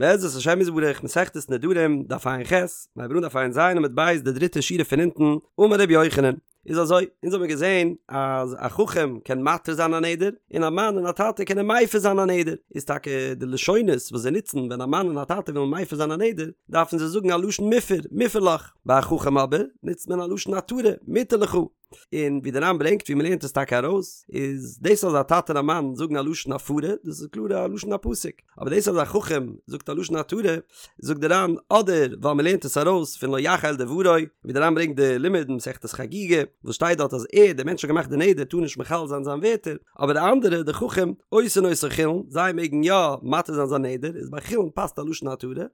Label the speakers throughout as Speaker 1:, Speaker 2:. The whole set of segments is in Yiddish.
Speaker 1: בעזרת השם יתברך, מסכת נדרים, דף ע"ח, מיר הייבן אן דף ע"ז עמוד ב', די דריטע שורה פון אונטן, אמר רבי יוחנן, איז אזוי, אונז האבן געזען אז א חכם קען מתיר זיין א נדר, און א מאן און א טאטע קענען מפר זיין א נדר, איז טאקע די לשונות וואס זיי נוצן ווען א מאן און א טאטע ווילן מפר זיין א נדר, דארפן זיי זאגן א לשון מופר, מופר לך, ביי א חכם אבער, נוצט מען א לשון התרה, מותר לך. און ווי דער ר"ן ברענגט ווי מ'לערנט עס טאקע ארויס, איז דאס אז א טאטע און א מאן זאגן א לשון הפרה, דאס איז קלאר א לשון הפסוק, אבער דאס אז א חכם זאגט א לשון התרה, זאגט דער ר"ן אדער ווייל מ'לערנט עס ארויס פון לא יחל דברו, ווי דער ר"ן ברענגט די לימוד אין מסכת חגיגה, וואס שטייט דארט אז ער, דער מענטש האט געמאכט די נדר, טאר נישט מחלל זיין זיין ווערטער, אבער די אנדערע, די חכם, עושין אותו חולין, זיי מעגן יא מתיר זיין זיין נדר, איז ביי חולין פאסט א לשון התרה.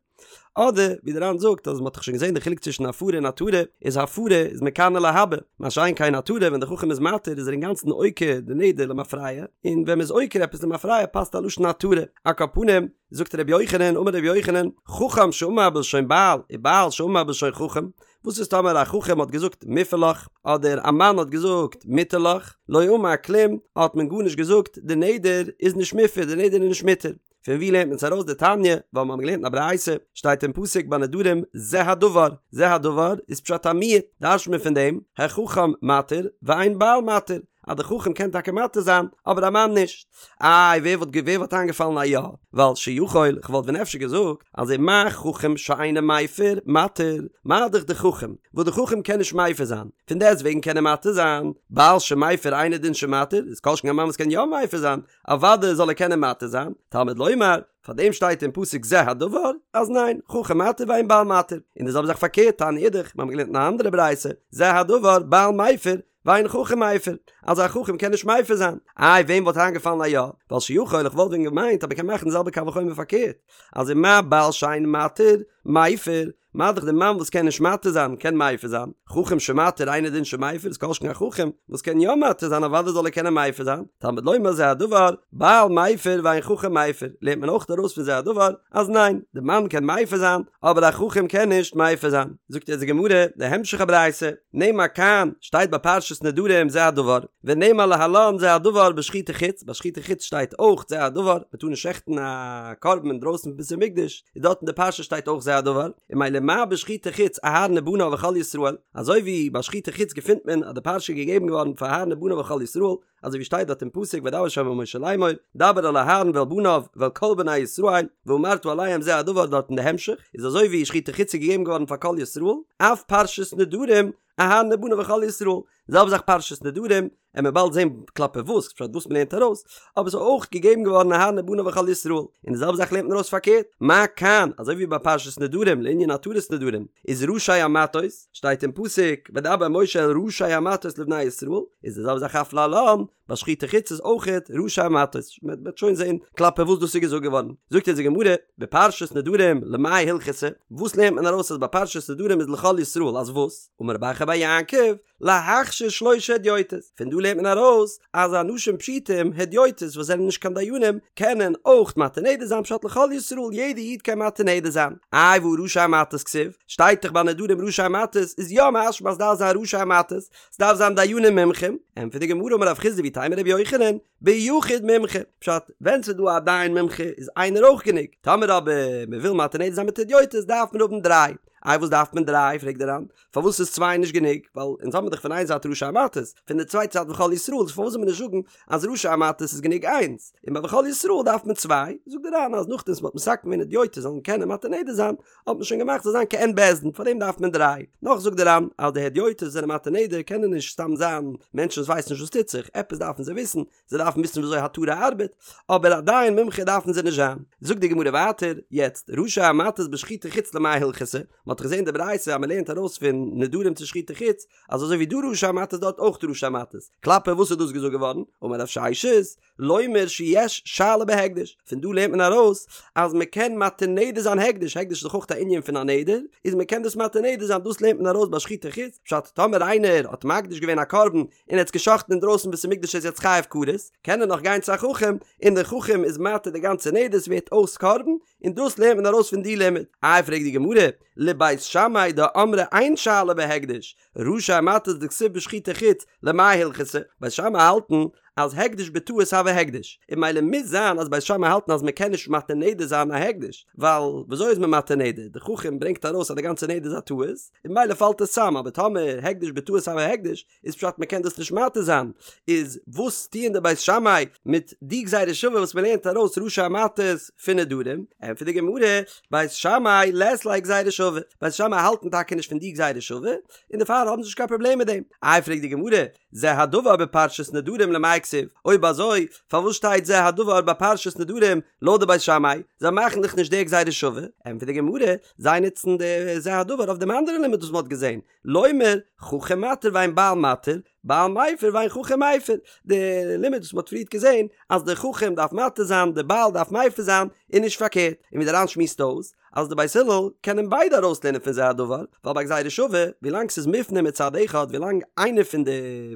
Speaker 1: אדער ווי דער ר"ן זאגט אז מען האט דאך שוין געזען די חילוק צווישן הפרה און התרה, איז הפרה איז מכאן ולהבא, מה שאין כן התרה ווען דער חכם איז מתיר איז ער אינגאנצן עוקר די נדר למפרע, און ווען מען איז עוקר עפעס למפרע פאסט א לשון התרה. על כל פנים, זאגט ר' יוחנן, אמר ר' יוחנן, חכם שאמר בלשון בעל, ובעל שאמר בלשון חכם, וואס איז טאמער א חכם האט געזאגט מופר לך, אדער א מאן האט געזאגט מותר לך, לא אמר כלום, האט מען גארנישט געזאגט, די נדר איז נישט מופר, די נדר איז נישט מותר. פון ווי לערנט מען עס ארויס דתניא, ווייל מיר האבן געלערנט אין א ברייתא, שטייט אין פסוק ביי נדרים זה הדבר, זה הדבר איז פשט א מיעוט, דרש'ט מען פון דעם, החכם מתיר ואין בעל מתיר, אז די חכם קען טאקע מתיר זיין, אבער א מאן נישט. איי ווער וואלט ווער וואלט איינגעפאלן א יא, ווייל שיכול, כ'וואלט ווען אפשר געזאגט, אז ומה חכם שאינו מפר, מתיר, מה דאך די חכם, וואס די חכם קען נישט מפר זיין, פון דעסט וועגן קען ער מתיר זיין, בעל שמפר אינו דין שמתיר, איז כל שכן א מאן וואס קען יא מפר זיין, אוודאי זאל ער קענען מתיר זיין, תלמוד לומר, פאר דעם שטייט אין פסוק זה הדבר, אז ניין, חכם מתיר ואין בעל מתיר, און די זעלבע זאך פארקערט, תניא אידך, מיר האבן געלערנט אין א אנדערע ברייתא, זה הדבר, בעל מפר, ואין חכם מפר, אז א חכם קען נישט מפר זיין, איי וועם וואלט איינגעפאלן א יא, ווייל שיכול איך וואלט ווען געמיינט אז מען קען מאכן די זעלבע קל וחומר פארקערט, אז ומה בעל שאין מתיר, מפר, מה דאך די מאן וואס קען נישט מתיר זיין קען מפר זיין, חכם שמתיר אינו דין שמפר איז כל שכן א חכם וואס קען יא מתיר זיין אוודאי זאל ער קענען מפר זיין, תלמוד לומר זה הדבר, בעל מפר ואין חכם מפר, לערנט מען אויך ארויס פון זה הדבר אז ניין, די מאן קען מפר זיין אבער א חכם קען נישט מפר זיין. זאגט יעצט די גמרא די המשך הברייתא, נאמר כאן, שטייט ביי פרשת נדרים זה הדבר, ונאמר להלן זה הדבר בשחוטי חוץ, ביי שחוטי חוץ שטייט אויך זה הדבר, מען טאר נישט שעכטן א קרבן אינדרויסן פון בית המקדש, איז דארט אין די פרשה שטייט אויך זה הדבר, און ממילא מה בשחוטי חוץ אהרן ובניו וכל ישראל, אזוי ווי ביי שחוטי חוץ געפינט מען אז די פרשה איז געגעבן געווארן פאר אהרן ובניו וכל ישראל, אזוי ווי שטייט דארט אין פסוק וידבר ה' אל משה לאמור, דבר אל אהרן ואל בניו ואל כל בני ישראל, ואמרת אליהם זה הדבר דארט אין די המשך, איז אזוי ווי שחוטי חוץ איז געגעבן געווארן פאר כל ישראל, אף פרשת נדרים אהרן ובניו וכל ישראל, די זעלבע זאך פרשת נדרים, עמיר באלד זען כלפי וואס, פשט וואס מ'לערנט ארויס, אבער ס'איז אויך געגעבן געווארן אהרן ובניו וכל ישראל, און די זעלבע זאך לערנט מען ארויס פארקערט, מה כאן, אזוי ווי ביי פרשת נדרים לענין התרת נדרים, איז ראשי המטות, שטייט אין פסוק, וידבר משה אל ראשי המטות לבני ישראל, איז די זעלבע זאך אף להלן, ביי שחוטי חוץ איז אויכעט ראשי המטות, מען וועט שוין זען כלפי וואס דאס איז געזאגט געווארן, זאגט אונז די גמרא, בפרשת נדרים למאי הלכתא, וואס לערנט מען ארויס אז ביי פרשת נדרים איז לכל ישראל אז וואס? אמר רב אחא בר יעקב, להכשיר שלשה הדיוטות, פון דא לערנט מען ארויס אז אנשים פשוטים, הדיוטות וואס זענען נישט קיין דיינים, קענען אויך מתיר נדר זיין פשט לכל ישראל יעדע איד קען מתיר נדר זיין, איי והא ראשי המטות כתיב, שטייט דאך ביי נדרים ראשי המטות איז יא משמע אז דארף זיין ראשי המטות, ס'דארף זיין דיינים מומחים, ענטפערט די גמרא אמר רב חסדא ואיתימא רבי יוחנן, ביחיד מומחה, פשט, ווען ס'איז דא א דיין מומחה איז איינער אויך גענוג, טאמער אבער מ'וויל מתיר נדר זיין מיט הדיוטות דארף מען האבן דריי, איי וואס דארף מען דריי פרעגט דער ר"ן, פארוואס איז צוויי נישט גענוג, ווייל אונז האבן דאך פון איין זייט ראשי המטות, פון די צווייטע זייט וכל ישראל, איז פארוואס זאל מען נישט זאגן אז ראשי המטות איז גענוג איינס, און ביי וכל ישראל דארף מען צוויי, זאגט דער ר"ן אז נאכדעם וואס מ'האט מתקן געווען הדיוטות זאלן קענען מתיר נדר זיין, האט מען שוין געמאכט זאל זיין כעין בית דין, פארדעם דארף מען דריי. נאך זאגט דער ר"ן אז די הדיוטות זענען מתיר נדר קענען נישט סתם זיין מענטשן וואס ווייסן נישט וואס טוט זיך, עפעס דארפן זיי וויסן, זיי דארפן וויסן וויאזוי התרה ארבעט, אבער א דיין מומחה דארפן זיי נישט זיין. זאגט די גמרא ווייטער, יעצט, ראשי המטות בשחוטי חוץ למאי הלכתא, מען האט דאך געזען די ברייתא אז מען לערנט ארויס פון נדרים צו שחוטי חוץ, אז אזוי ווי דא ראשי המטות דארט אויך ראשי המטות, כלפי וואס איז דאס געזאגט געווארן? אמר רב ששת, לומר שיש שאלה בהקדש, פון דא לערנט מען ארויס אז מען קען מתיר נדר זיין הקדש, הקדש איז דאך אויך א ענין פון א נדר, איז מען קען דאס מתיר נדר זיין, דאס לערנט מען ארויס ביי שחוטי חוץ, פשט טאמער איינער האט מקדיש געווען א קרבן און ער האט עס גע'שחט'ן אינדרויסן בית המקדש איז יעצט חייב כרת, קען ער נאך גיין צו א חכם און דער חכם איז מתיר די גאנצע נדר ס'ווערט אויס קרבן, און דאס לערנט מען ארויס פון די לימוד. איי פרעגט די גמרא, לבית שמאי דאמרי אין שאלה בהקדש, ראשי המטות דכתיב בשחוטי חוץ, למאי הלכתא, בית שמאי האלטן. אז הקדש בטעות הוי הקדש, און ממילא מוז זיין אז בית שמאי האלטן אז מען קען נישט מתיר נדר זיין א הקדש, ווייל וויאזוי איז מען מתיר נדר, די חכם ברענגט ארויס אז די גאנצע נדר איז א טעות, און ממילא פאלט עס צאם, אבער טאמער הקדש בטעות הוי הקדש, איז פשט מען קען דאס נישט מתיר זיין, איז וואס טוען די בית שמאי מיט די גזירה שווה וואס מען לערנט ארויס ראשי המטות פון נדרים? ענטפערט די גמרא, בית שמאי לית להו גזירה שווה, בית שמאי האלטן טאקע נישט פון די גזירה שווה, און דערפאר האבן זיי נישט קיין פראבלעם מיט דעם. איי פרעגט די גמרא, זה הדבר בפרשת נדרים למאי כתיב, אויב אזוי פארוואס שטייט זה הדבר ביי פרשת נדרים לויט די בית שמאי, זיי מאכן דאך נישט די גזירה שווה, ענטפערט די גמרא, זיי נוצן די זה הדבר אויף דעם אנדערן לימוד וואס מען האט געזען, לומר, חכם מתיר ואין בעל מתיר, בעל מפר ואין חכם מפר, די לימוד וואס מען האט פריערט געזען אז די חכם דארף מתיר זיין די בעל דארף מפר זיין און נישט פארקערט, און ווי די ר"ן שמועסט אויס אז די בית הלל קענען ביידע ארויסלערנען פון זה הדבר, ווייל ביי גזירה שווה ווילאנג ס'איז מופנה מצד אחד ווילאנג איינע פון די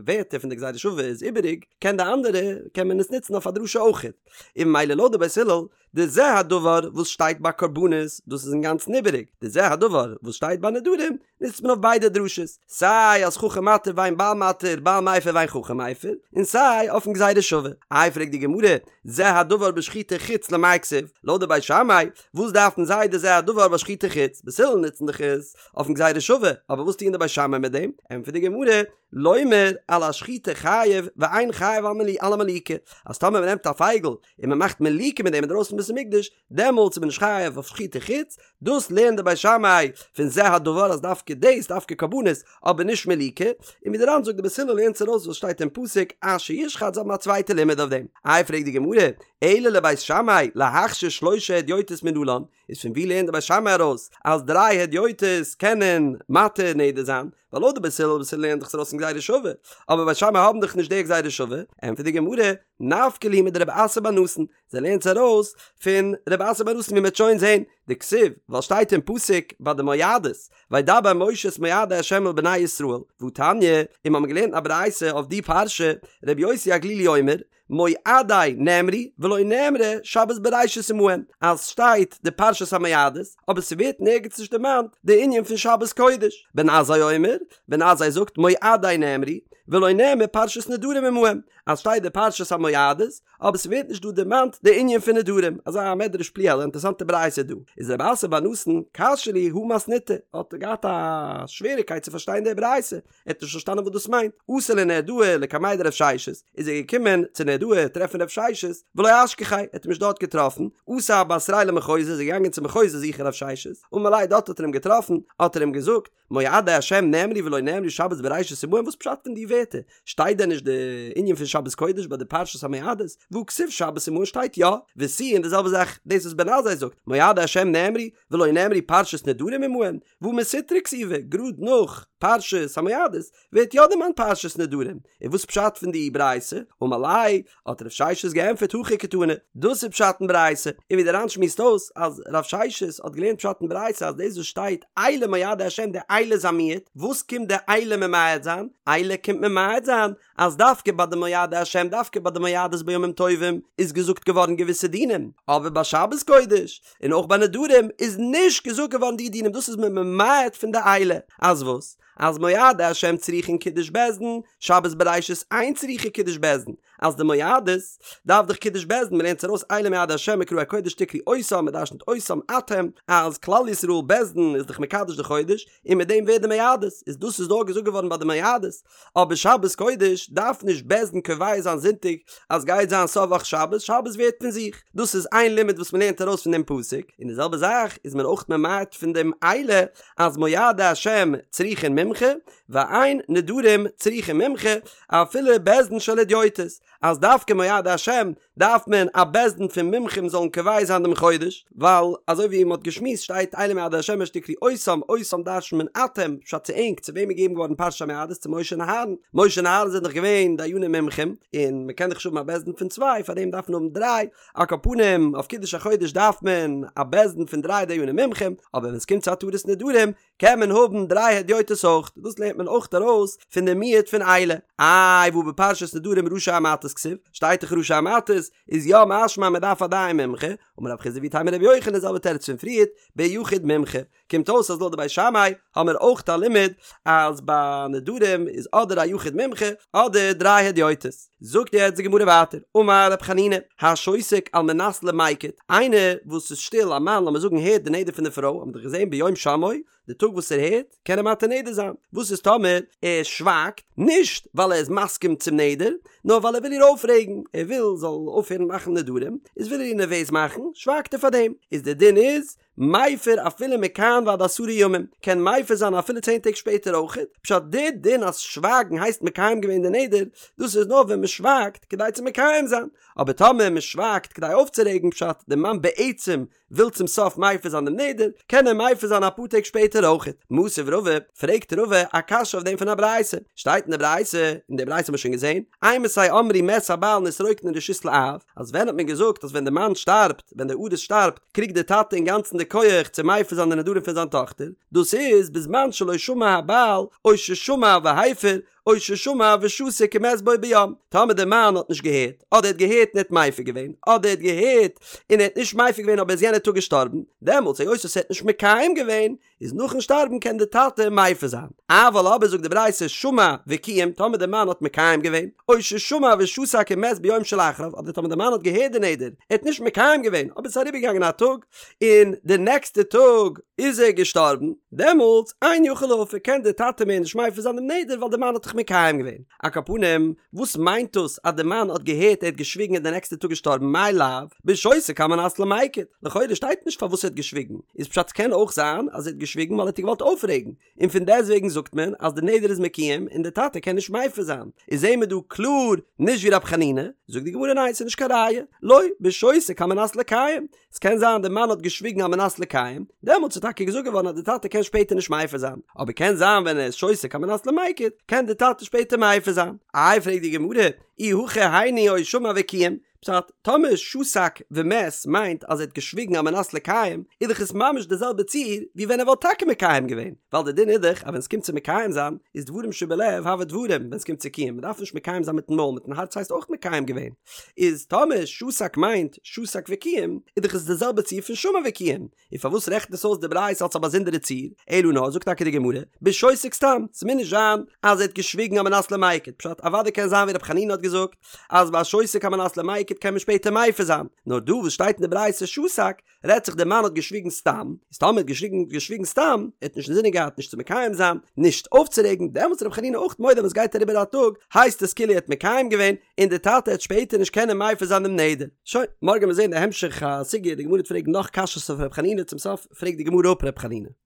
Speaker 1: ווערטער פון די גזירה שווה איז איבעריג קען די אנדערע קען מען עס נוצן אויף א דרשה אויכעט, און ממילא לויט די בית הלל די זה הדבר וואס שטייט ביי קרבנות, דאס איז אינגאנצן איבעריג, די זה הדבר וואס שטייט ביי נדרים, נוצט מען אויף ביידע דרשות, סיי אז חכם מתיר ואין בעל מתיר, בעל מפר ואין חכם מפר, און סיי אויפן גזירה שווה. איי פרעגט די גמרא, זה הדבר בשחוטי חוץ למאי כתיב, לויט די בית שמאי, וואס דארפן זיי די זה הדבר ביי שחוטי חוץ, בית הלל נוצן דאך עס אויפן גזירה שווה, אבער וואס טוען די בית שמאי מיט דעם? ענטפערט די גמרא, לומר על השחיטה חייב ואין חייב על המליקה, אז טאמער מען נעמט א פייגל און מען מאכט מליקה מיט דעם אינדרויסן בית המקדש, דעמאלטס איז מען נישט חייב אויף שחוטי חוץ, דאס לערנט די בית שמאי פון זה הדבר אז דווקא דאס, דווקא קרבנות, אבער נישט מליקה, און ווי די ר"ן זאגט די בית הלל לערנט עס ארויס וואס שטייט אין פסוק אשר ישחט זיי האבן א צווייטע לימוד אויף דעם. איי פרעגט די גמרא, אלא לבית שמאי להכשיר שלושה הדיוטות מנלן, איז פון ווי לערנט די בית שמאי ארויס אז דריי הדיוטות קענען מתיר נדר זיין? ווייל לויט די בית הלל בית הלל לערנט דאך עס ארויס פון גזירה שווה, אבער בית שמאי האבן דאך נישט די גזירה שווה, ענטפערט די גמרא, נפקא להו מדרב אסי בר נתן, זיי לערנט עס ארויס פון רב אסי בר נתן ווי מ'וועט שוין זען, דכתיב, ווייל שטייט אין פסוק ביי די מועדות, וידבר משה את מועדי ה' אל בני ישראל, והתניא, און מ'האמיר געלערנט א ברייתא אויף די פרשה, רבי יוסי הגלילי אומר, מועדי נאמרו ולא נאמרה שבת בראשית עמהן, אז שטייט די פרשת המועדות, אבער ס'ווערט נערגעץ נישט דערמאנט די ענין פון שבת קודש. בן עזאי אומר, בן עזאי זאגט מועדי נאמרו ולא נאמרה פרשת נדרים עמהן, אז שטייט די פרשת המועדות, אבער ס'ווערט נישט דא דערמאנט די ענין פון נדרים, אזא מדרש פליאה, אן אינטערעסאנטע ברייתא דא, איז רב אסי בר נתן קשיא להו הא מתניתא, האט ער געהאט א שוועריקייט צו פארשטיין די ברייתא, ער האט נישט פארשטאנען וואס דאס מיינט, אתא לנהרדעא לקמיה דרב ששת, איז ער געקומען צו נהרדעא טרעפן רב ששת, ולא אשכחיה, ער האט אים נישט דארט געטראפן, אתא בתריה למחוזא, איז ער געגאנגען צו מחוזא זוכן רב ששת, אמר ליה דארט האט ער אים געטראפן, האט ער אים געזאגט, מועדי השם נאמרו ולא נאמרה שבת בראשית עמהן, וואס פשט פון די ווערטער? שטייט דען נישט די ענין פון שבת קודש ביי די פרשת המועדות? והא כתיב שבת עמהן שטייט יא, ותו און די זעלבע זאך דאס וואס בן עזאי זאגט, מועדי השם נאמרו ולא נאמרה פרשת נדרים עמהן, והא מסיטרא כתיבא, גראד נאך פרשת המועדות ווערט יא דערמאנט פרשת נדרים, און וואס פשט פון די ברייתא? אמר ליה, האט רב ששת געענטפערט הכי קתני, דאס איז פשט אין ברייתא, און ווי דער ר"ן שמועסט אויס אז רב ששת האט געלערנט פשט אין ברייתא אז דאס וואס שטייט אלה מועדי השם די אלה איז א מיעוט, וואס קומט די אלה ממעט זיין? אלה קומט ממעט זיין אז דווקא ביי די מועדי השם דווקא ביי די מועדות בימים טובים איז געזאגט געווארן געוויסע דינים, אבער ביי שבת קודש און אויך ביי נדרים איז נישט געזאגט געווארן די דינים דאס איז מען ממעט פון די אלה, אז וואס? אז מועדי השם צריכין קידוש בית דין, שבת בראשית אין צריכה קידוש בית דין, אז די מועדות דארף דאך קידוש בית דין, מ'לערנט עס ארויס אלה מועדי השם מקראי קודש תקראו אותם, מ'דרשנ'ט אותם אתם, אז כלל ישראל בית דין איז דאך מקדש די חודש, און מיט דעם ווערט די מועדות, איז דאס איז נאר געזאגט געווארן ביי די מועדות, אבער שבת קודש דארף נישט בית דין קובע זיין זונטאג אז גייט זיין סוף וואך שבת, שבת ווערט פון זיך, דאס איז איין לימוד וואס מ'לערנט ארויס פון דעם פסוק, און די זעלבע זאך איז מען אויך ממעט פון דעם אלה אז מועדי השם צריכין מומחה, ואין נדרים צריכין מומחה, אפילו בית דין של הדיוטות, אז דווקא מועדי השם דארף מען א בית דין פון מומחים זאלן קובע זיין דעם חודש, ווייל אזוי ווי מען האט געשמועסט שטייט אלה מועדי השם אשר תקראו אותם, אותם דרש'נט מען אתם, פשט צו ענק, צו וועם איז געגעבן געווארן פרשת המועדות צו משה און אהרן, משה און אהרן זענען דאך געווען דיינים מומחים, און מען קען דאך נישט האבן א בית דין פון צוויי, פארדעם דארף מען האבן דריי, על כל פנים אויף קידוש החודש דארף מען א בית דין פון דריי דיינים מומחים, אבער ווען עס קומט צו התרת נדרים קען מען האבן דריי הדיוטות אויך. אויך, דאס לערנט מען אויך ארויס פון די מיעוט פון אלה. איי והא בפרשת נדרים ראשי המטות כתיב, שטייט דאך ראשי המטות, איז יא משמע מען דארף א דיין מומחה, אמר רב חסדא ואיתימא רבי יוחנן די זעלבע תירוץ פון פריערט, ביחיד מומחה. קומט אויס אז לויט די בית שמאי האמיר אויך א לימוד אז ביי נדרים איז אדער א יחיד מומחה אדער דריי הדיוטות. זאגט יעצט די גמרא ווייטער, אמר רב חנינא, השותק על מנת למיקט, איינער וואס איז שטיל, א מאן לאמיר זאגן הערט די נדר פון די פרוי, האבן מיר דאך געזען ביום שמעו, די טאג וואס ער הערט, קען ער מתיר נדר זיין. וואס איז טאמער ער שווייגט, נישט ווייל ער איז מסכים צום נדר, נאר ווייל ער וויל איר אויפרעגן, ער וויל זאל אויפהערן מאכן נדרים, איז וויל ער איר נערוועז מאכן, שווייגט ער פאר דעם. איז די דין איז, מפר אפילו מכאן ועד עשרה ימים, קען מפר זיין אפילו צען טעג שפעטער אויכעט, פשט די דין אז שווייגן הייסט מקיים געווען די נדר, דאס איז נאר ווען מען שווייגט כדי צו מקיים זיין, אבער טאמער מען שווייגט כדי אויפצורעגן פשט די מאן בעצם וויל צום סוף מפר זיין דעם נדר, קען ער מפר זיין אפאר טעג שפעטער אויכעט. מתיב רבא, פרעגט רבא א קשיא אויף דעם פון א ברייתא, שטייט אין די ברייתא, און די ברייתא האט מען שוין געזען, אימתי אמרו מת הבעל נתרוקנה רשות לאב, אז ווען האט מען געזאגט אז ווען די מאן שטארבט, ווען דער ארוס שטארבט, קריגט דער טאטע אינגאנצן די כח צו מפר זיין די נדרים פון זיין טאכטער, דאס איז בזמן שלא שמע הבעל, או ששמע והפר, או ששמע ושתק ומת בו ביום, טאמער דער מאן האט נישט געהערט, אדער ער האט געהערט און ער האט מפר געווען, אדער ער האט געהערט און ער האט נישט מפר געווען אבער איז יענער טאג געשטארבן, דעמאלטס היות ער האט נישט מקיים געווען, איז נאכן שטארבן קען די טאטע מפר זיין. אבל אבער זאגט די ברייתא שמע וקיים טאמער די מאן האט מקיים געווען, או ששמע ושתק ומת ביום שלאחריו, אדער טאמער די מאן האט געהערט די נדר, ער האט נישט מקיים געווען, אבער ס'איז אריבערגעגאנגען א טאג, און די נעקסטע טאג איז ער געשטארבן, דעמאלטס אין יכול להפר קען די טאטע מער נישט מפר זיין דעם נדר ווייל די מאן האט דאך מקיים געווען. על כל פנים, וואס מיינט דאס אז די מאן האט געהערט ער האט געשוויגן און די נעקסטע טאג געשטארבן מאי לאו בשותק על מנת למיקט, לכאורה שטייט נישט פארוואס ער האט געשוויגן, איז פשט ס'קען אויך זיין אז ער האט געשוויגן ווייל ער האט איר געוואלט אויפרעגן, און פון דעסטוועגן זאגט מען אז די נדר איז מקוים און די טאטע קען נישט מפר זיין, איז זעהן מיר דא קלאר נישט ווי רב חנינא, זאגט די גמרא ניין ס'איז נישט קיין ראיה, לא, בשותק על מנת לקיים, ס'קען זיין די מאן האט געשוויגן על מנת לקיים, דעמאלטס איז טאקע געזאגט געווארן אז די טאטע קען שפעטער נישט מפר זיין, אבער קען זיין ווען ער איז שותק על מנת למיקט, קען די טאטע שפעטער מפר זיין. איי פרעגט די גמרא, אי הכי היינו או שמע וקיים, פשט, טאמער שתק ומת מיינט אז ער האט געשוויגן על מנת לקיים, איז דאך עס ממש די זעלבע ציור ווי ווען ער וואלט טאקע מקיים געווען, ווייל די דין איז דאך אז ווען ס'קומט צו מקיים זיין, איז דברים שבלב הוו דברים ווען ס'קומט צו קיום, מ'דארף נישט מקיים זיין מיטן מויל, מיטן הארץ הייסט אויך מקיים געווען. איז טאמער שתק מיינט שתק וקיים, איז דאך עס די זעלבע ציור פון שמע וקיים, און פארוואס רעכנט עס אויס די ברייתא אלס א באזונדערע ציור? אלא נאר זאגט טאקע די גמרא, בשותק סתם, ס'מוז נישט זיין אז ער האט געשוויגן על מנת למיקט, פשט אוודאי קען זיין ווי ר' חנינא האט געזאגט אז ביי שותק על מנת למיקט קען מען שפעטער מפר זיין, נאר דא וואס שטייט אין די ברייתא שתק, רעדט זיך דער מאן האט געשוויגן סתם, איז טאמער האט געשוויגן געשוויגן סתם, ער האט נישט אינזינען געהאט נישט צו מקיים זיין, נישט אויפצורעגן, דעמאלטס איז רבי חנינא אויך מודה ווען סגייט אריבער א טאג, הייסט עס כאילו ער האט מקיים געווען, און די טאטע העט שפעטער נישט קענען מפר זיין דעם נדר. שוין, מארגן וועלן מיר זען די המשך הסוגיא, די גמרא וועט פרעגן נאך קשיות אויף רבי חנינא, צום סוף פרעגט די גמרא אפ רבי חנינא.